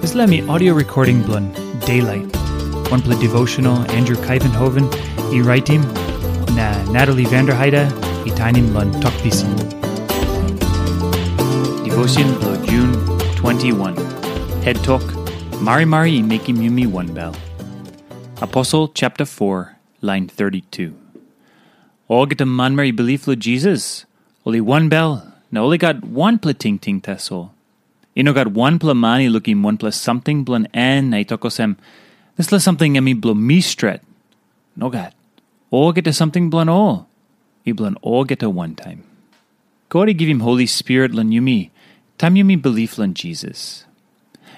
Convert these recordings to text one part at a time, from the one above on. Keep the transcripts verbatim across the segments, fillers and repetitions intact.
Dispela mi audio recording bilong Daylight, wanpela devotional Andrew Kaivenhoven i raitim, na Natalie Vanderheide i tainim long Tok Pisin. Devotion bilong Jun twenty-one. Head Tok, Marimari i mekim yumi wanbel. Aposel chapter four, lain thirty-two. Olgeta manmeri i bilip long Jisas, ol i wanbel, na ol i gat wanpela tingting tasol. I no gat wanpela man i lukim wanpela samting bilong en na i tok olsem, "Dispela samting em i bilong mi stret." Nogat. Olgeta samting bilong ol i bilong olgeta wantaim. God i givim Holi Spirit long yumi, taim yumi bilip long Jisas.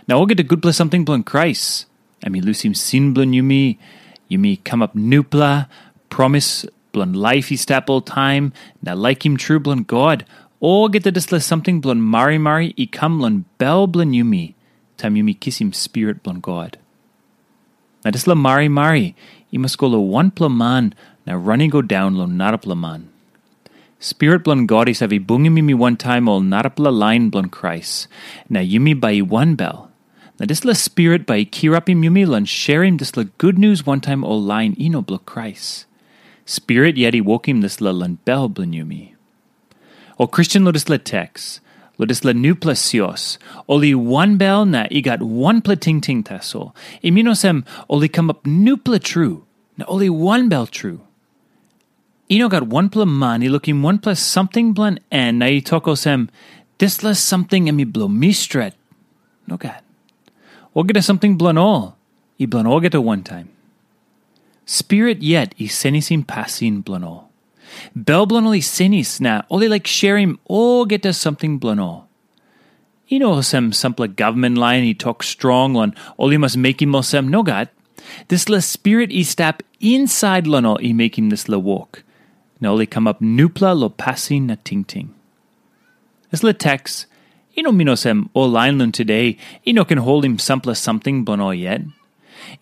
Na olgeta gutpela samting bilong Krais, em i lusim sin bilong yumi, yumi kamap nupela, promis bilong laip i stap oltaim, na laikim tru bilong God, olgeta dispela samting bilong marimari i kam long bel bilong yumi, taim yumi kisim Spirit bilong God. Na dispela marimari i mas go long wanpela man na ran i go daun long narapela man. Spirit bilong God i save bungim yumi wantaim ol narapela lain bilong Krais, na yumi bai i wanbel. Na dispela Spirit bai i kirapim yumi long sherim dispela gutnius wantaim ol lain i no bilong Krais. Spirit yet i wokim dispela long bel bilong yumi. Ol Kristen long dispela teks, long dispela nupela sios, ol i wanbel na i gat wanpela tingting tasol. I min olsem, ol i kamap nupela tru, na ol i wanbel tru. I no gat wanpela man i lukim wanpela samting bilong en na i tok olsem, "Dispela samting em i bilong mi stret." Nogat. Olgeta samting bilong ol i bilong olgeta wantaim. Spirit yet i senisim pasin bilong ol. Bel bilong ol i senis na ol i laik sherim olgeta samting bilong ol. I no olsem sampela gavman lain i tok strong long ol i mas mekim olsem. Nogat. Dispela Spirit i stap insait long ol i mekim dispela wok, na ol i kamap nupela long pasin na tingting. Dispela teks i no min olsem ol lain long tude i no ken holim sampela samting bilong ol yet.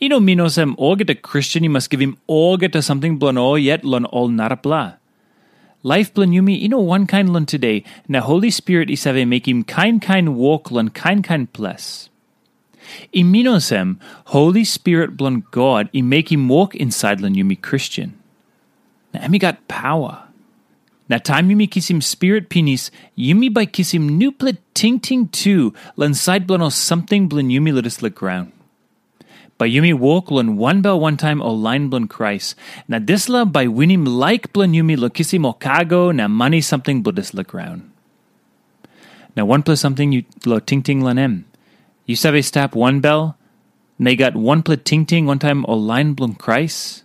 I no min olsem olgeta Kristen i mas givim olgeta samting bilong ol yet long ol narapela. Laip bilong yumi i no wankain long tude, na Holi Spirit i save mekim kain kain wok long kain kain ples. I min olsem, Holi Spirit bilong God i mekim wok insait long yumi Kristen. Na em i gat paua. Na taim yumi kisim Spirit pinis, yumi bai kisim nupela tingting tu long sait bilong ol samting bilong yumi long dispela graun. Bai yumi wok long wanbel wantaim ol lain bilong Krais, na dispela bai winim laik bilong yumi long kisim ol kago na mani samting bilong dispela graun. Na wanpela samting yu lo tingting long em. Yu save stap wanbel, na i gat wanpela tingting wantaim ol lain bilong Krais?